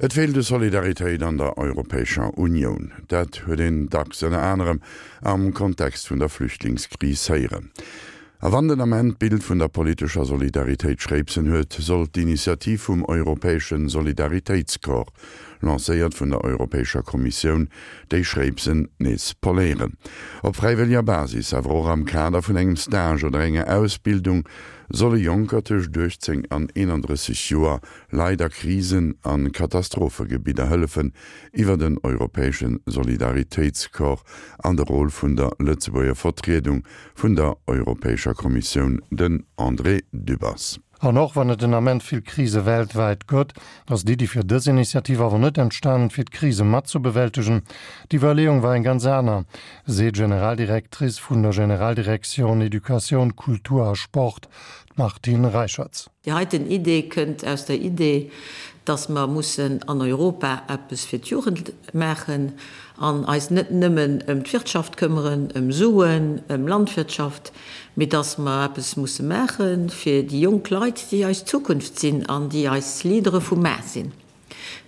Et feelt u Solidaritéit an der Europäescher Unioun. Dat huet een dacks ënner anerem am Kontext vun der Flüchtlingskris héieren. A wann den Ament d'Bild vun der politescher Solidaritéit Schréipsen huet, sollt d'Initiativ vum Europäesche Solidaritéitscorps, lancéiert vun der Europäescher Kommissioun, déi Schréipsen nees poléieren. Op fräiwëlleger Basis, awer och am Kader vun engem Stage oder enger Ausbildung, solle Jonker tëscht 18 an 31 Joer Leit a Krisen a Katastrophegebidder hëllefen, iwwer den Europäesche Solidaritéitscorps an de Rôle vun der Lëtzebuerger Vertriedung vun der Europäescher Kommissioun, den André Dübbers. An och wann et den Ament vill Krise weltwäit gëtt, ass d'Iddi fir dës Initiativ awer net entstanen, fir d'Krise mat ze bewältegen. D'Iwwerleeung war eng ganz aner, seet d'Generaldirectrice vun der Generaldirektioun Educatioun, Kultur a Sport, d'Martine Reicherts. Déi heiten Idee kënnt aus der Idee, dass mer mussen an Europa eppes fir d'Jugend maachen an eis net nëmmen ëm d'Wirtschaft këmmeren, ëm Suen, ëm Landwirtschaft, mee dass mer eppes musse maache fir déi jonk Leit, déi eis Zukunft sinn an déi eis Leadere vu mar sinn.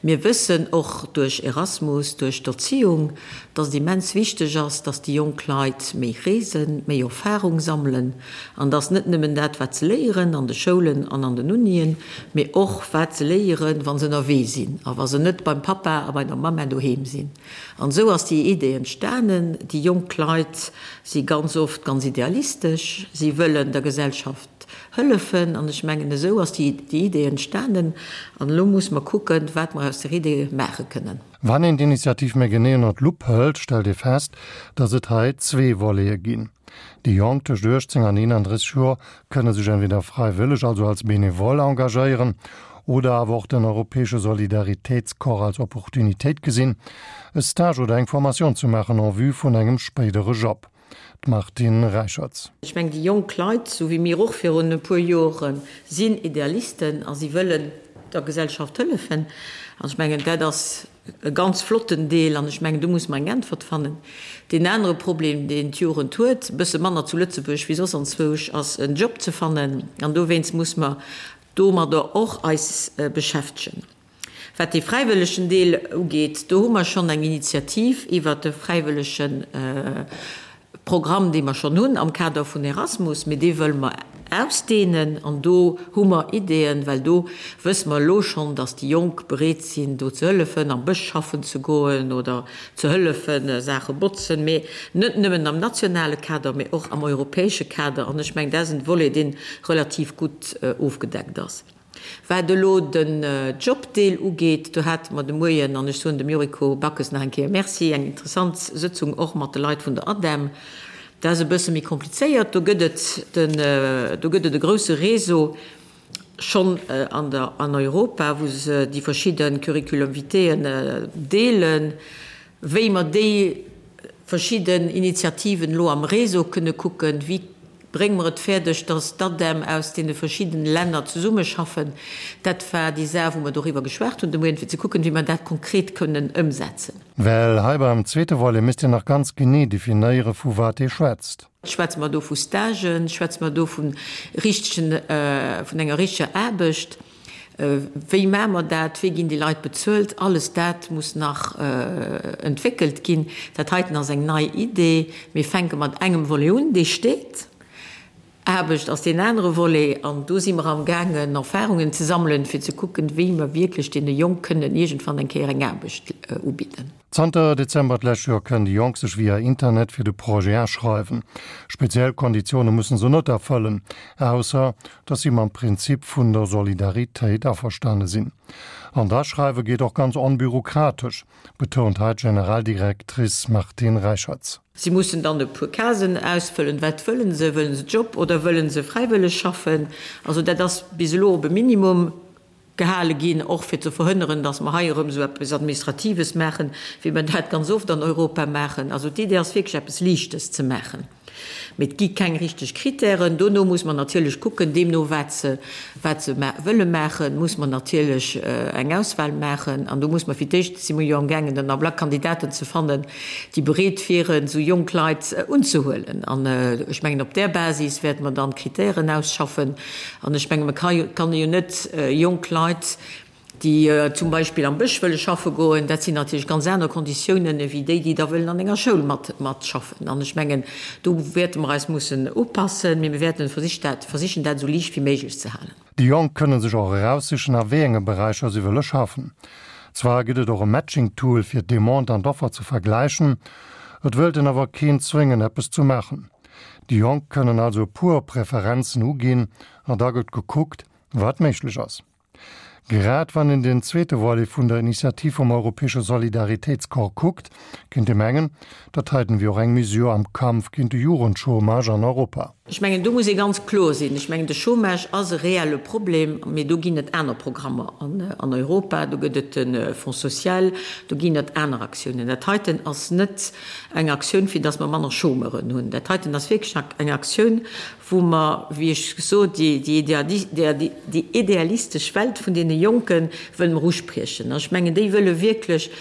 Mir wëssen och duerch Erasmus, duerch d'Erziehung, dass et immens wichteg ass, dass déi jonk Leit méi reesen, méi Erfahrung sammelen an dass net nëmmen dat, wat se léieren an de Schoulen an an den Unien, mee och wat se léieren, wa se ënnerwee sinn a wa se net beim Pappa a bei der Mamma doheem sinn. An esou ass déi Idee entstanen. Déi jonk Leit si ganz oft ganz idealistesch, si wëllen der Gesellschaft Hëllefen. An ech mengen, esou ass déi Idee entstanen. An elo musse mer kucken, wat mer aus der Idee maache kënnen. Wann een d'Initiativ méi genee ënner d'Lupp hëlt, stellt ee fest, datt et hei zwee Volete ginn. Déi Jonk tëscht 18 an 31 Joer kënne sech entweder fräiwëlleg, also als Benevole engagéieren, oder awer och den Europäesche Solidaritéitscorps als Opportunitéit gesinn, e Stage oder eng Formation ze maachen en vue vun engem spéidere Job. D'Martine Reicherts. Ech mengen, déi jonk Leit, esou wéi mir och virun e puer Joren, sinn Idealisten a si wëllen der Gesellschaft hëllefen. An ech mengen, dat ass e ganz flotten Deel an ech mengen, do muss mer eng Äntwert fannen. Deen anere Problem, deen d'Jugend huet, e bësse manner zu Lëtzebuerg wéi soss anzwousch, ass en Job ze fannen. An dowéinst muss mer domadder och eis beschäftegen. Wat dee fräiwëllegen Deel ugeet, do hu mer schonn eng Initiativ iwwert de fräiwëllege Programm, dee mer schonn hunn am Kader vun Erasmus, mee dee wëlle mer ausdehnen. An do hu mer Ideeën, well do wësse mer elo schonn, dass déi Jonk bereet sinn, do ze hëllefen, am Bësch schaffen ze goen oder ze hëllefen, Saache botzen, mee net nëmmen am nationale Kader, mee och am europäesche Kader. An ech mengen, dat ass en Volet, dee relativ gutt ofgedeckt ass. Wat elo den Jobdeel ugeet, do hate mer de Moien, an ech soen dem Yuriko Backes nach eng Kéier Merci, eng interessant Sëtzung och mat de Leit vun der ADEM. Dat ass e bësse méi komplizéiert. Do gëtt et den, do gëtt et e grouse Réseau schonn an der, an Europa, wou se déi verschidde Curriculum vitaeën deelen. Wéi mer déi verschidden Initiativen elo am Réseau kënne kucken, wéi brénge mer et fäerdeg, dass d'ADEM aus deene verschiddene Länner zesummeschaffen, dat war déi Saach, wou mer doriwwer geschwat hunn de Moien, fir ze kucken, wéi mer dat konkret kënnen ëmsetzen. Well hei beim zweete Volet misst een nach ganz genee definéiere vu wat ee schwätzt. Schwätze mer do vu Stagen? Schwätze mer do vu richtegen, vun enger richteger Aarbecht? Wéi maache mer dat? Wéi ginn déi Leit bezuelt? Alles dat muss nach entwéckelt ginn. Dat heiten ass eng nei Idee. Mir fänke mat engem Volet un, dee steet. Aarbecht ass deen anere Volet. An do si mer amgaangen, Erfahrungen ze sammelen, fir ze kucken, wéi mer wierklech deene Jonk kënnen iergendwann eng Kéier eng Aarbecht ubidden. Zanter Dezember d'lescht Joer kënnen déi Jonk sech via Internet fir de Projet aschreiwen. Speziell Konditioune mussen se net erfëllen, ausser datt si mam Prinzip vun der Solidaritéit averstane sinn. An d'Aschreiwe geet och ganz onbürokratesch, betount hei d'Generaldirectrice Martine Reicherts. Si mussen dann e puer Casen ausfëllen. Wat wëllen se? Wëllen se Job oder wëllen se fräiwëlleg schaffen? Also dat ass bis elo op e Minimum Gehale ginn, och fir ze verhënneren, datt mer hei erëm esou eppes Administratives maachen, wéi mer dat ganz oft an Europa maachen. Also d'Idee ass wierklech eppes Liichtes ze maachen, mee et gi keng richteg Kritären. Dono muss mer natierlech kucken, deemno wat se, wat se wëlle maachen, muss mer natierlech eng Auswahl maachen. An do muss mer fir d'éischt, si mer jo amgaangen den Ablack Kandidaten ze fannen, déi bereet wieren, esou jonk Leit unzehuelen. An ech mengen, op där Basis wäerte mer dann d'Kritären ausschaffen. An ech menge, mer kann jo net jonk Leit. Déi zum Beispill am Bësch wëlle schaffe goen, dat sinn natierlech ganz aner Konditiounen ewéi déi, déi da wëllen an enger Schoul mat matschaffen. An ech mengen, do wäerte mer eis mussen upassen, mee mir wäerten versich dat, versichen dat esou liicht wéi méiglech ze halen. Déi Jonk kënne sech och eraussichen, a wéi enge Beräicher si wëlle schaffen. Zwar gëtt et och e Matching-Tool, fir d'Demande an d'Offer ze vergläichen, et wëllt een awer keen zwéngen, eppes ze maachen. Déi Jonk kënnen also e puer Preferenzen uginn an da gëtt gekuckt, wat méiglech ass. Grad wann een den zweete Volet vun der Initiativ vum Europäesche Solidaritéitscorps kuckt, kéint ee mengen, dat heiten wier och eng Mesure am Kampf géint de Jugendchômage an Europa. Ech mengen, do muss ee ganz kloer sinn. Ech mengen, de Chômage ass e reelle Problem, mee do ginn et aner Programmer an Europa. Do gëtt et de Fonds social, do ginn et aner Aktiounen. Dat heiten ass net eng Aktioun, fir datt mer manner Chômeuren hunn. Dat heiten ass wierklech eng Aktioun, wou mer, wéi ech gesot, déi idealistesch Welt vun deene Jonke wëlle mer uspriechen. An ech mengen, déi wëlle wierklech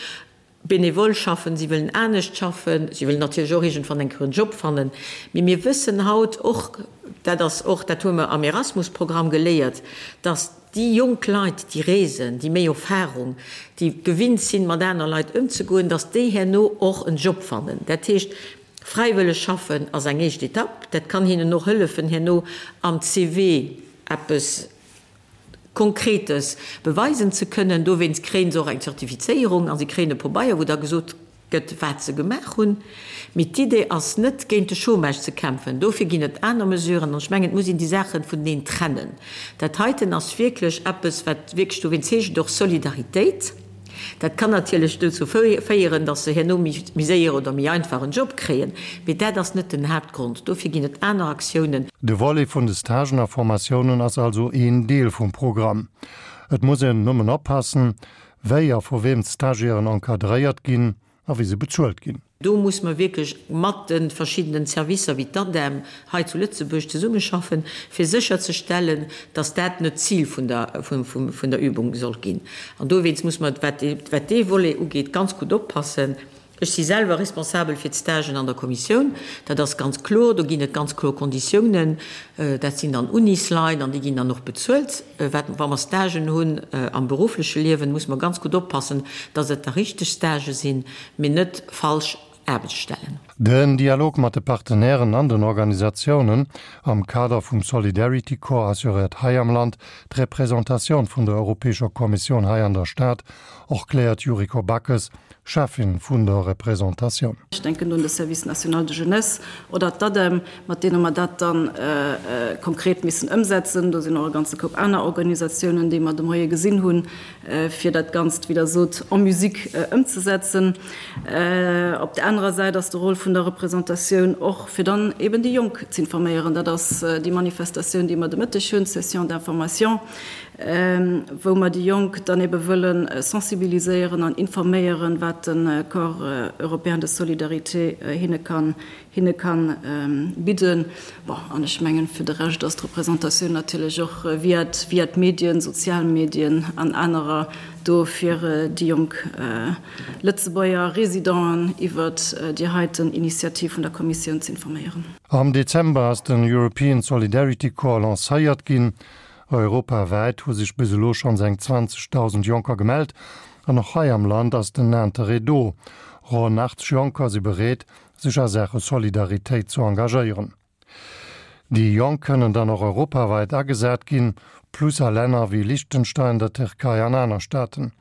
benevol schaffen, si wëllen anescht schaffen, si wëllen natierlech och iergendwann eng Kéier en Job fannen. Mee mir wëssen haut och, dat ass och, dat hu mer am Erasmus-Programm geléiert, dass déi jonk Leit, déi reesen, déi méi Erfahrung, déi gewinnt sinn, mat aner Leit ëmzegoen, dass déi herno och en Job fannen. Dat heescht, Fräiwëlleg schaffen ass eng éischt Etapp. Dat kann hinnen och hëllefen, herno am CV eppes Konkretes beweisen ze kënnen. Dowéinst kréien se och eng Zertifizéierung a si kréien e Pobeier, wou da gesot gëtt, wat se gemaach hunn. Mee d'Idee ass net, géint de Chômage ze kämpfen. Dofir ginn et aner Mesuren. An ech mengen, et muss een déi Saache vuneneen trennen. Dat heiten ass wierklech eppes, wat wierklech, dowéinst heescht et och Solidaritéit. Dat kann natierlech dozou féieren, datt se herno méi séier oder méi einfach en Job kréien, mee dat ass net den Haaptgrond. Dofir ginn et aner Aktiounen. De Volet vun de Stagen a Formatiounen ass also een Deel vum Programm. Et muss een nëmmen oppassen, wéi a vu weem d'Stagiairen encadréiert ginn a wéi se bezuelt ginn. Do muss mer wierklech mat de verschiddenen Servicer wéi d'ADEM hei zu Lëtzebuerg zesummeschaffen, fir sécherzestellen, dass dat net d'Zil vun der Übung soll ginn. An dowéinst muss mer, wat dee Volet ugeet, ganz gutt oppassen. Ech si selwer responsabel fir d'Stagen an der Kommissioun. Dat ass ganz kloer. Do ginn et ganz kloer Konditiounen. Dat sinn dann Unisleit an déi ginn dann och bezuelt. Wat, wa mer Stagen hunn am beruffleche Liewen, muss mer ganz gutt oppassen, dass et da richteg Stagë sinn, mee net falsch Aarbechtsstellen. Den Dialog mat de Partenairen an den Organisatiounen am Kader vum Solidarity Corps assuréiert hei am Land d'Representatioun vun der Europäescher Kommissioun hei an der Stad, erkläert Yuriko Backes, Cheffin vun der Representatioun. Ech denken do un de Service national de jeunesse oder d'ADEM, mat deene mer dat da konkret missen ëmsetzen. Do sinn och e ganze Koup aner Organisatiounen, déi mer de Moie gesinn hunn, fir dat Ganzt, wéi Der sot, en musique ëmzesetzen. Op där anerer Säit ass de Rôle vun der Représentatioun och, fir dann eben déi Jonk z'informéieren. Dat ass déi Manifestatioun, déi mer de Mëtteg hunn, d'Session d'information, wou mer déi Jonk dann ebe wëlle sensibiliséieren an informéieren, wat de Corps européen de solidarité hinne kann hinne kann bidden. Bon, an ech mengen, fir de Rescht ass d'Représentatioun natierlech och via via d'Medien, sozial Medien an anerer do, fir déi jonk Lëtzebuerger Résidenten iwwert déi heiten Initiativ vun der Kommissioun z'informéieren. Am Dezember ass den European Solidarity Corps lancéiert ginn. Europawäit hu sech bis elo schonns eng 20.000 Jonker gemellt an och hei am Land ass den Interêt do. Ronn 80 Jonker si bereet, sech a Saache Solidaritéit zu engagéieren. Déi Jonk kënnen dann och europawäit agesat ginn, plus a Länner wéi Liechtenstein, der Tierkei an aner Staaten.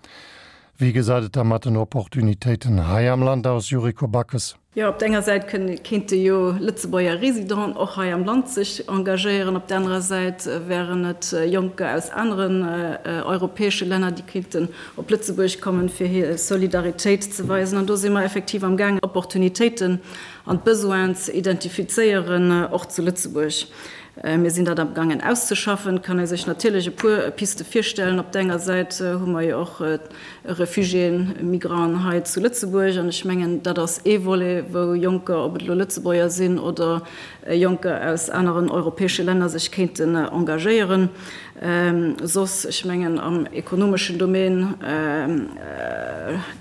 Wéi gesäit et da mat den Opportunitéiten hei am Land aus, Yuriko Backes? Jo, op der enger Säit kéinte jo Lëtzebuerger Residenten och hei am Land sech engagéieren, op der anerer Säit wären et Jonker aus aneren europäesche Länner, déi kéinten op Lëtzebuerg kommen, fir hir Solidaritéit ze weisen. An do si mer effektiv am gaangen, Opportunitéiten an d'Besoinen ze identifizéieren, och zu Lëtzebuerg. Mir sinn dat am gaangen auszeschaffen. Et kann ee sech natierlech e puer Piste virstellen. Op der enger Säit hu mer jo och Refugiéen, Migranten hei zu Lëtzebuerg. An ech mengen, dat ass ee Volet, wou Jonker, ob et elo Lëtzebuerger sinn oder Jonker aus aneren europäesche Länner, sech kéinten engagéieren. Soss, ech mengen am ekonomeschen Domaine.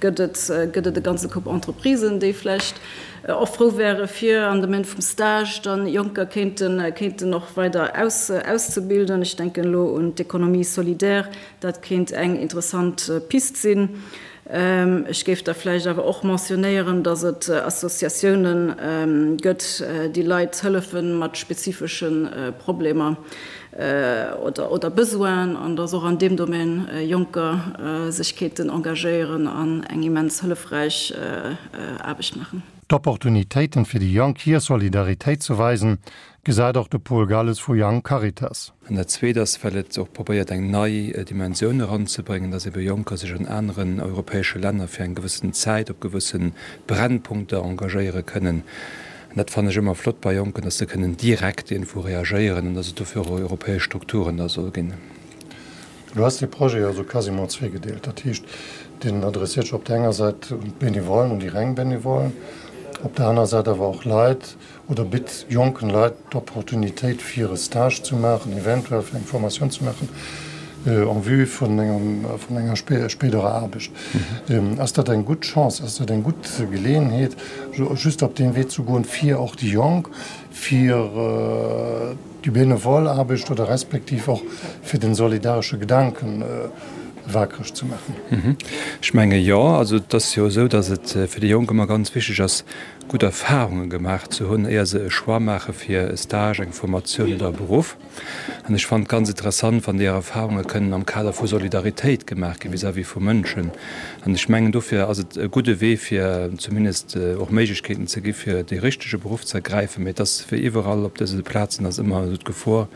gëtt et, gëtt et e ganze Koup Entreprisen, déi vläicht och frou wäre fir am Domaine vum Stage dann Jonker kéinten, kéinten och weider aus, auszebilden. Ech denken elo un d'Économie solidaire, dat kéint eng interessant Pist sinn. Ech géif da vläicht awer och mentionnéieren, dass et Associatiounen gëtt, déi Leit hëllefe mat spezifesche Problemer oder Besoinen, an dass och an deem Domaine Jonker sech kéinten engagéieren an eng immens hëllefräich Aarbecht maachen. D'Opportunitéiten fir déi Jonk hir Solidaritéit ze weisen, gesäit och de Paul Galles vu Young Caritas. An dat Zweet ass, well et och probéiert, eng nei Dimensioun eranzebréngen, dass ebe Jonker sech an aneren europäesche Länner fir eng gewëssen Zäit op gewësse Brennpunkter engagéiere kënnen. An dat fannen ech ëmmer flott bei Jonken, dass se kënnen direkt iergendwou reagéieren an dass et dofir och europäesch Strukturen da soll ginn. Elo ass dee Projet jo esou quasiment zweegedeelt. Dat heescht, deen adresséiert sech op där enger Säit un d'Benevollen, un déi reng Benevollen, op där aner Säit awer och Leit, oder bitt jonken Leit d'Opportunitéit fir e Stage ze maachen, eventuell fir eng Formatioun ze maachen en vue vun enger spéiderer Aarbecht. Ass dat eng gutt Chance, ass dat eng gutt Geleeënheet, just op deem Wee ze goen, fir och déi Jonk, fir déi benevol Aarbecht oder respektiv och fir den solidaresche Gedanken wakereg ze maachen? Ech menge jo. Also et ass jo esou, datt et fir déi Jonk ëmmer ganz wichteg ass, gutt Erfahrunge gemaach ze hunn, éier se e Choix maache fir e Stage, eng Formatioun oder e Beruff. An ech fannen et ganz interessant, wann déi Erfahrunge kënnen am Kader vu Solidaritéit gemaach gi vis-à-vis vu Mënschen. An ech mengen, dofir ass et e gudde Wee, fir zumindest och Méiglechkeeten ze gi fir dee richtege Beruff ze ergräifen. Mee et ass wéi iwwerall op dëse Plazen ass ëmmer esou d'Gefor,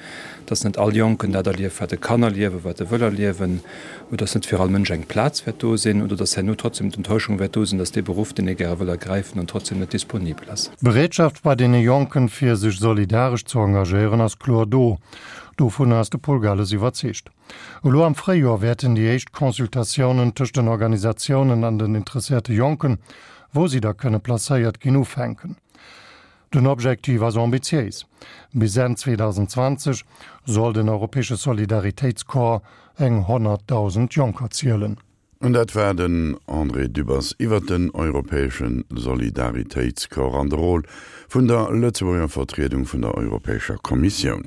dass net all Jonken dat erlieft, wat e kann erliewen, wat e wëll erliewen. oder dass net fir all Mënsch eng Plaz wäert do sinn, oder dass herno trotzdem d'Enttäuschung wäert do sinn, dass dee Beruff, deen ee gäre wëll ergräifen, dann trotzdem net disponibel ass. D'Bereetschaft bei deene Jonken, fir sech solidaresch ze engagéieren, ass kloer do. Dovunner ass de Paul Galles iwwerzeegt. Elo am Fréijoer wäerten déi éischt Consultatiounen tëscht den Organisatiounen an den interesséierte Jonken, wou si da kënne placéiert ginn, ufänken. Den Objektiv ass ambitiéis, Bis Enn 2020 soll den europäesche Solidaritéitscorps eng 100.000 Jonker zielen. An dat war den André Dübbers iwwert den europäesche Solidaritéitscorps an de Rôle vun der Lëtzebuerger Vertriedung vun der Europäescher Kommissioun.